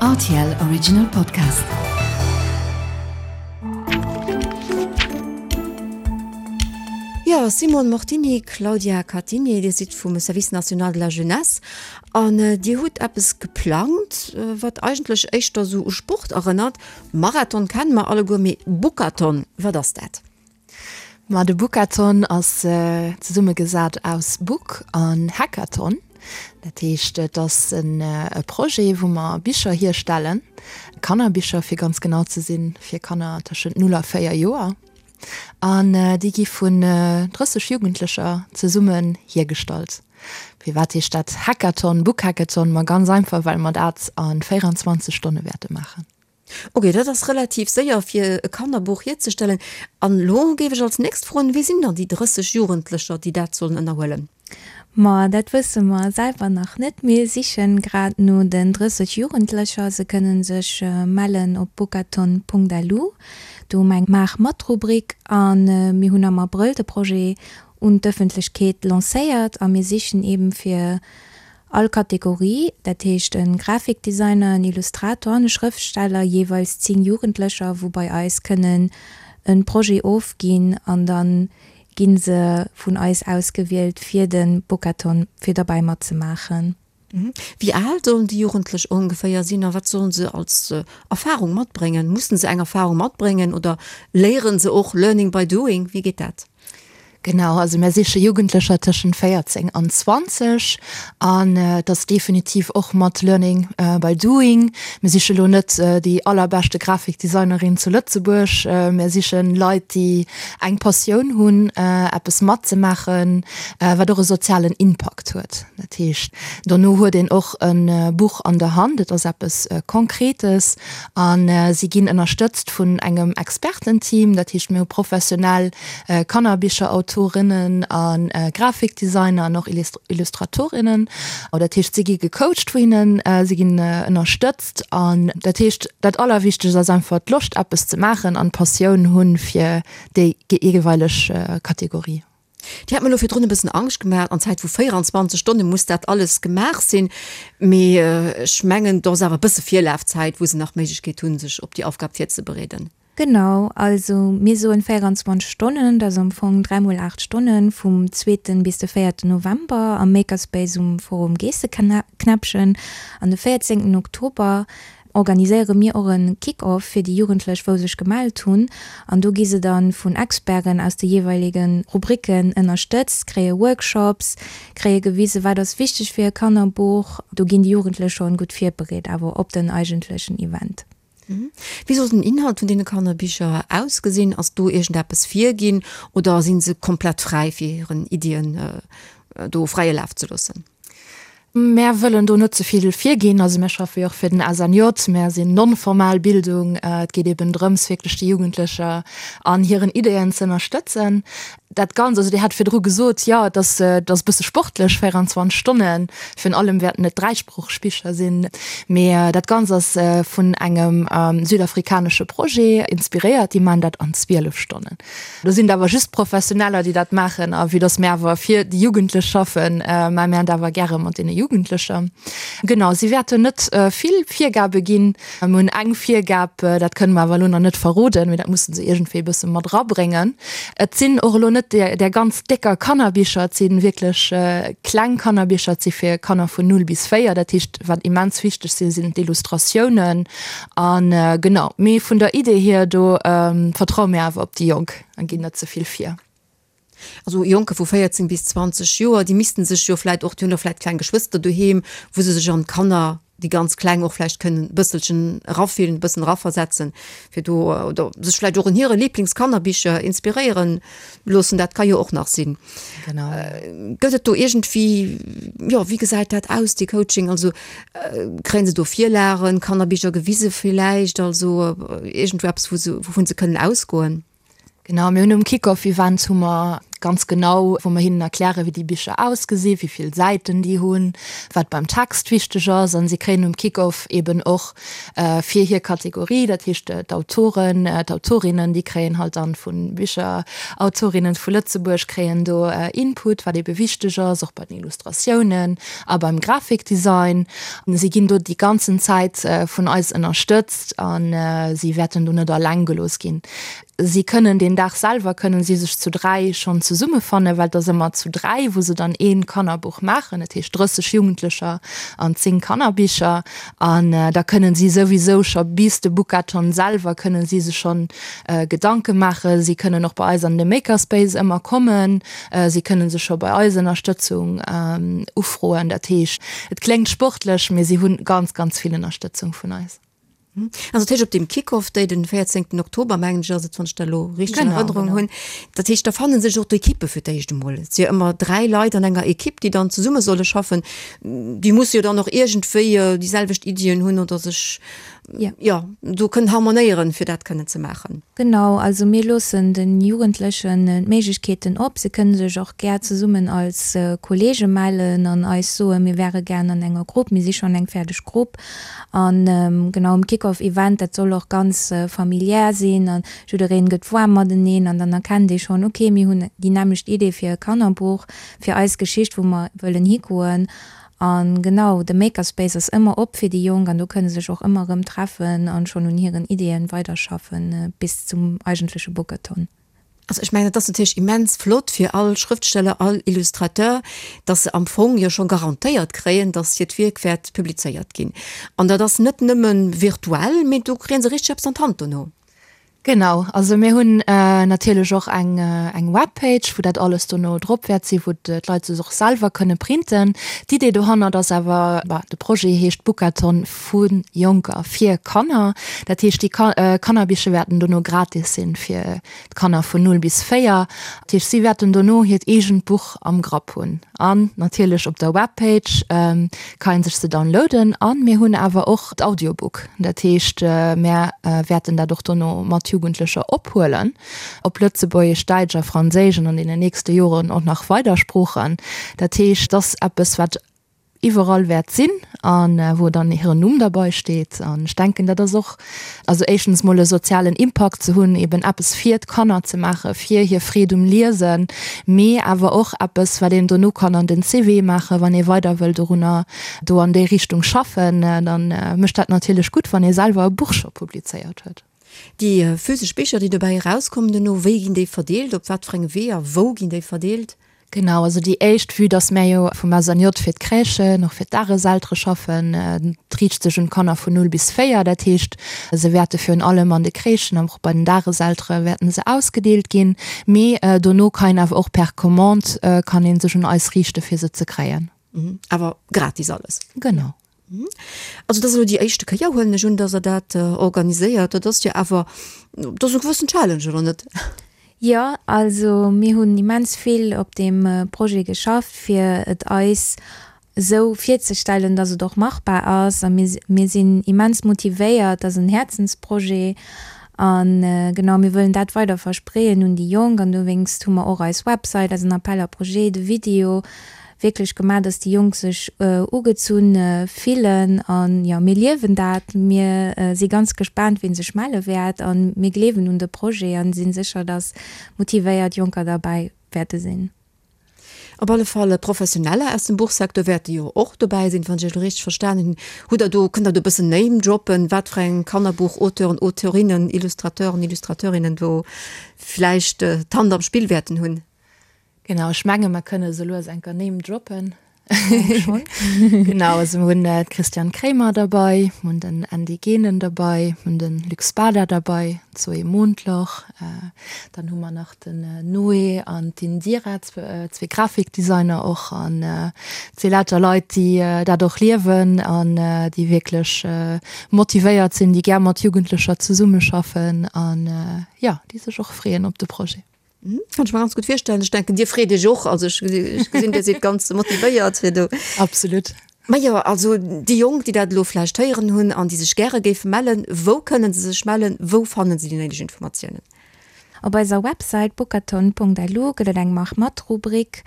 Rtl Original Podcast. Jo, Simone Mortini, Claudia Catigny, Dir sidd vum Service national de la jeunesse an Dir hutt eppes geplangt, wat eigentlech éischter esou u Sport erënnert. Marathon kenne mer alleguer, mee Bookathon, wat ass dat? Ma de Bookathon ass zesummegesat aus Book an Hackathon. Dat heescht, et ass e Projet, wou mer Bicher hierstellen, Kannerbicher fir ganz genau ze sinn, fir Kanner tëschent 0 a 4 Joer. An déi gi vun 30 Jugendlecher zesummen hiergestallt. Firwat heescht dat Hackathon, Bookhackathon? Ma ganz einfach, well mer dat a 24 Stonne wäerte maachen. Ok, dat ass relativ séier fir e Kannerbuch hierzestellen. An elo géif ech als nächst froen, Wie sinn dann déi 30 Jugendlecher, déi dat sollen ënnerhuelen? Ma dat wësse mer selwer nach net. Mir sichen grad no den 30 Jugendlecher. Se kënnen sech mellen op bookathon.lu. Do hu mer eng Maach mat-Rubrik a mir hunn am Abrëll de Projet un d'Ëffentlechkeet lancéiert a mir sichen eben fir All Kategorie, dat heescht e Grafikdesigner, en Illustrator an e Schrëftsteller, jeeweils 10 Jugendlecher, wou bei eis kënnen e Projet ofginn an da gi se vun eis ausgewielt fir de Bookathon fir derbäi matzemaachen. Wéi al sollen déi Jugendlech ongeféier sinn a wat sollen se als Erfarung matbréngen? Mussen se eng Erfarung matbréngen oder léieren se och learning by doing? Wéi geet dat? Genau, also mär siche Jugendlecher tëschent 14 an 20 an et ass definitiv och mat Learning by Doing. Mir siche lo net déi allerbeschte Grafikdesignerin zu Lëtzebuerg, mär siche Leit, déi eng Passioun hunn, eppes matzemaachen, wat och e sozialen Impakt huet. Dat heescht, dono huet een och e Buch an der Hand, et ass eppes Konkretes a si ginn ënnerstëtzt vun engem Expertenteam, dat heescht mir hu professionell Kannerbicherautorinnen a Grafikdesigner an och Illustratorinnen. Dat heescht, si gi gecoacht vu hinnen, si ginn ënnerstëtzt. An dat heescht, dat Allerwichtegst ass einfach d'Loscht eppes ze maachen an d'Passioun hunn fir déi jeeweileg Kategorie. Dir hat mir elo virdrun e bëssen Angscht gemaach, an Zäit vu 24 Stonne muss dat alles gemaach sinn. Mee ech mengen, do ass awer e bësse Virlafzäit, wou se nach d'Méiglechkeet hunn, sech op déi Aufgab virzebereeden. Genau, also mir soen 24 Stonnen, dat ass am Fong 3 mol 8 Stonnen, vum zweeten bis de véierten November am Makerspace um Forum Geesseknäppchen. An de véierzéngten Oktober organiséiere mir och e Kick-Off fir déi Jugendlech wou sech gemellt hunn. An do gi se dann vun Experten aus de jeeweilege Rubriken ënnerstëtzt, kréie Workshops, kréie gewisen, wat ass wichteg fir e Kannerbuch. Do ginn déi Jugendlech schonn gutt virbereet awer op den eigentlechen Event. Wéi soll den Inhalt vun deene Kannerbicher ausgesinn? Ass do iergendeppes virginn oder si se komplett fräi fir hiren Iddien do fräie Laf ze loossen? Mär wëllen do net ze vill virginn. Also mär schaffe jo och fir den SNJ, mär sinn non-formal Bildung. Et geet eben drëms wierklech déi Jugendlecher an hiren Ideeën ze ënnerstëtzen. Dat Ganzt, also Dir hat virdru gesot, jo et ass, et ass e bësse sportlech, 24 Stonnen, virun allem wäerten et dräisproocheg Bicher sinn, mee dat Ganzt ass vun engem südafrikanesche Projet inspiréiert, déi maachen dat an 12 Stonnen. Do sinn et awer just Professioneller, déi dat maachen a vue dass mir awer fir déi Jugendlech schaffen, maache mir dat awer gäre mat deene Jugendlecher. Genau, si wäerten net vill Virgabe ginn. Mir hunn eng Virgab, dat kënne mer awer elo nach net verroden, mee dat musse se iergendwéi e bësse mat erabréngen. Et sinn och elo net där ganz décker Kannerbicher, et si wierklech kleng Kannerbicher, et si fir Kanner vun 0 bis 4. Dat heescht, wat immens wichteg sinn, sinn d'Illustratiounen. A genau, mee vun der Idee hier, do vertraue mir awer op déi Jonk a ginn net ze vill vir. Also Jonke vu 14 bis 20 Joer, déi missten sech jo vläit och, déi hunn och vläit kleng Geschwëster doheem, wou se sech an d'Kanner, déi ganz Kleng och vläicht kënnen e bësselchen erafillen, e bëssen eraversetzen, fir do, oder sech vläicht och un hire Lieblingskannerbicher inspiréieren loossen, dat ka jo och nach sinn. Genau. Gëtt et do iergendwéi, jo, wéi gesäit dat aus, dee Coaching? Also kréien se do Virlagen, Kannerbicher gewise villäicht, also iergendwou eppes, wou se, wouvun se kënnen ausgoen? Genau, mir hunn um Kick-Off-Event hu mer. Ganz genau, wou mer hinnen erklären, wéi déi Bicher ausgesinn, wéi vill Säiten déi hunn, wat beim Text wichteg ass. An si kréien um Kick-Off eben och fir hir Kategorie, dat heescht d'Autoren, d'Autorinnen, déi kréien halt dann vu Bicherautorinnen vu Lëtzebuerg kréien do Input, wat ebe wichteg ass, och bei den Illustratiounen a beim Grafikdesign. Si ginn do déi ganzen Zäit vun eis ënnerstëtzt a si wäerten do net alleng gelooss ginn. Si kënnen deen Dag selwer kënnen si sech zu 3 schonn zesummefannen, well et ass ëmmer zu 3, wou se dann ee Kannerbuch maachen, dat heescht 30 Jugendlecher an 10 Kannerbicher. An da kënnen si souwisou scho bis de Bookathon selwer kënnen si sech schonn Gedanke maachen. Si kënnen och bei eis an de Makerspace ëmmer kommen. Si kënnen sech scho bei eis Ënnerstëtzung ufroen. Dat heescht, et kléngt sportlech, mee si hunn ganz, ganz vill Ënnerstëtzung vun eis. Also dat heescht op deem Kick-off Day, den 14 Oktober mengen ech ass et, wann ech dat elo richteg an Erënnerung hunn, dat heescht da fanne sech och d'Ekippe fir d'éischt emol. Et si jo ëmmer 3 Leit an enger Ekipp, déi dann zesumme solle schaffen. Déi musse jo dann och iergendwéi déi selwecht Iddien hunn oder sech, jo, do kënnen harmonéieren, fir dat kënnen ze maachen. Genau, also mir loossen de Jugendlechen d'Méiglechkeeten op. Se kënnen sech och gär zesummen als Kollege mellen an eis soen, mir wäre gär an enger Grupp, mir si schonn eng fäerdeg Grupp. An genau um Kick-Off Event, dat soll och ganz familiär sinn an jiddereen gëtt waarm mateneen an dann erkennt ee schonn, ok mir hunn déi nämmlecht Idee fir e Kannerbuch, fir eis Geschicht wou mer wëllen higoen. An genau, de Makerspace ass ëmmer op fir déi Jonk an do kënne sech och ëmmer erëm treffen an schonn un hiren Ideeën weiderschaffen bis zum eigentleche Bookathon. Also ech mengen, et ass natierlech immens flott fir all Schrëftsteller, all Illustrateur, dass se am Fong jo scho garantéiert kréien, dass hiert Wierk wäert publizéiert ginn. An dat ass net nëmme virtuell, mee do kréie se richteg eppes an d'Hand dono. Genau, also mir hunn natierlech och eng eng Webpage, wou dat alles dono drop wäert sinn, wou d'Leit sech och selwer kënne printen. D'Idee dohannert ass awer, bah, de Projet heescht Bookathon vu Jonker fir Kanner. Dat heescht, déi Kannerbicher wäerten dono gratis sinn fir d'Kanner vun 0 bis 4. Dat heescht, si wäerten dono hiert eegent Buch am Grapp hunn. An natierlech op der Webpage ka ee sech se downloaden. A mir hunn awer och d'Audiobook. Dat heescht, mär wäerten dat och dono mat Jugendlecher ophuelen op Lëtzebuergesch, Däitsch a Franséisch an an deenen nächste Joren och nach weider Sproochen. Dat heescht, et ass eppes, wat iwwerall wäert sinn a wou dann hiren Numm derbei steet. An ech denken, dat ass och, also éischtens mol e sozialen Impakt ze hunn, eben eppes fir d'Kanner ze maachen, fir hir Freed um Liesen, mee awer och eppes, wat een dono kann an den CV maachen, wann ee weider wëll dorunner, do an déi Richtung schaffen, dann mécht dat natierlech gutt, wann ee selwer e Buch scho publizéiert huet. Déi physesch Bicher, déi dobäi erauskommen dono, wéi ginn déi verdeelt, op wat fir enge Weeër, wou ginn déi verdeelt? Genau, also déi éischt, vue dass mär jo vum SNJ fir d'Crèchen, och fir d'Dageseltere schaffen, et riicht sech un d'Kanner vun 0 bis 4, dat heescht, se wäerte virun allem an de Crèchen an och bei den Dageseltere wäerten se ausgedeelt ginn, mee dono kann een awer och per Commande kann ee sech un eis riichte fir se ze kréien. Awer gratis alles? Genau. Also dat ass elo déi éischte Kéier, huelen ech un, datt Der dat organiséiert. Dat ass jo awer, dat ass e gewëssen Challenge, oder net? Jo, also mir hunn immens vill op deem Projet geschafft, fir et eis esou virzestellen, datt et och machbar ass. A mir, mir sinn immens motivéiert. Dat ass en Häerzensprojet. A genau, mir wëllen dat weider verspreeën un déi Jonk. An dowéinst hu mer och eis Website, eisen Appel à projets, de Video, wierklech gemaach, dass déi Jonk sech ugezunn fillen an jo, mir liewen dat. Mir si ganz gespaant, wien sech melle wäert an mir gleewen un de Projet an sinn sécher, dass motivéiert Jonker derbäi wäerte sinn. Op alle Fall Professioneller aus dem Buchsecteur wäerte jo och dobäi sinn, wann ech Iech elo richteg verstanen hunn. Hutt Der do, kënnt Der do e bëssen Name droppen, wat fir eng Kannerbuch-Auteuren, Auteurinnen, Illustrateuren, Illustrateurinnen do vläicht d'Hand am Spill wäerten hunn? Genau, ech menge mer kënne sou lues enker Name droppen. Genau, also mir hunn d'Christiane Kremer derbei, mir hunn den Andy Genen derbei, mir hunn de Luc Spada derbei, d'Zoé Mondloch, dann hu mer nach den Noé an d'Indira, zwee Grafikdesigner och an et si lauter Leit, déi dat och liewen an déi wierklech motivéiert sinn, déi gär mat Jugendlecher zesummeschaffen an jo, déi sech och freeën op de Projet. Kann ech mer ganz gutt virstellen. Ech denken, Dir freet Iech och. Also ech gesinn, Dir sidd ganz motivéiert fir do. Absolut. Majo, also déi Jonk, déi dat elo vläicht héieren hunn an déi sech gäre géife mellen, wou kënnen se sech mellen? Wou fannen se déi néideg Informatiounen? Op eiser Websäit bookathon.lu gëtt et eng Mach mat-Rubrik,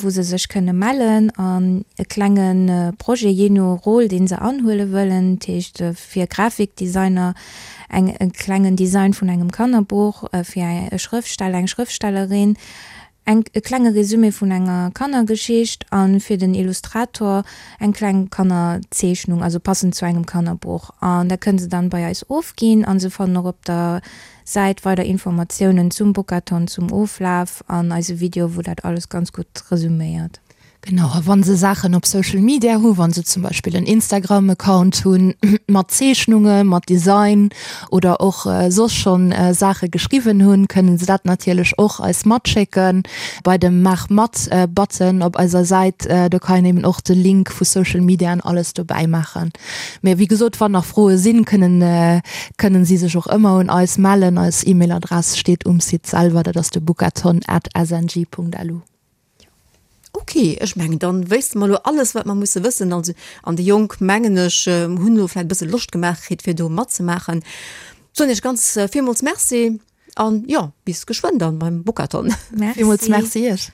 wou se sech kënne mellen an e klenge Projet, jee no Rôle, dee se anhuele wëllen, dat heescht fir Grafikdesigner eng e klengen Design vun engem Kannerbuch, fir e Schrëftsteller, eng Schrëftstellerin eng e klenge Resumé vun enger Kannergeschicht a fir den Illustrator eng kleng Kannerzeechnung, also passend zu engem Kannerbuch. An dat kënne se dann bei eis ofginn a se fannen och op der Säit weider Informatiounen zum Bookathon, zum Oflaf an eise Video, wou dat alles ganz gutt resuméiert. Genau, a wa se Saachen op Social Media hu, wa se zum Beispill en Instagram-Account hunn mat Zeechnunge, mat Design oder och soss schonn Saache geschriwwen hunn, kënnen se dat natierlech och eis matschécken bei dem Maach mat-Button op eiser Säit. Do kann een eben och de Link vu Social Media an alles dobäi maachen. Mee wéi gesot, wann nach Froe sinn, kënnen kënnen si sech och ëmmer un eis mellen. Eis E-Mail-Adress steet um Site selwer, dat ass de bookathon at sng.lu. Ok, ech mengen dann wéisste mer elo alles wat mer musse wëssen. Also an déi Jonk mengen ech hunn elo vläit e bësse Loscht gemaach kritt fir do matzemaachen. Soen iech ganz villmools Merci an jo bis geschwënn dann beim Bookathon. Villmools Merci iech.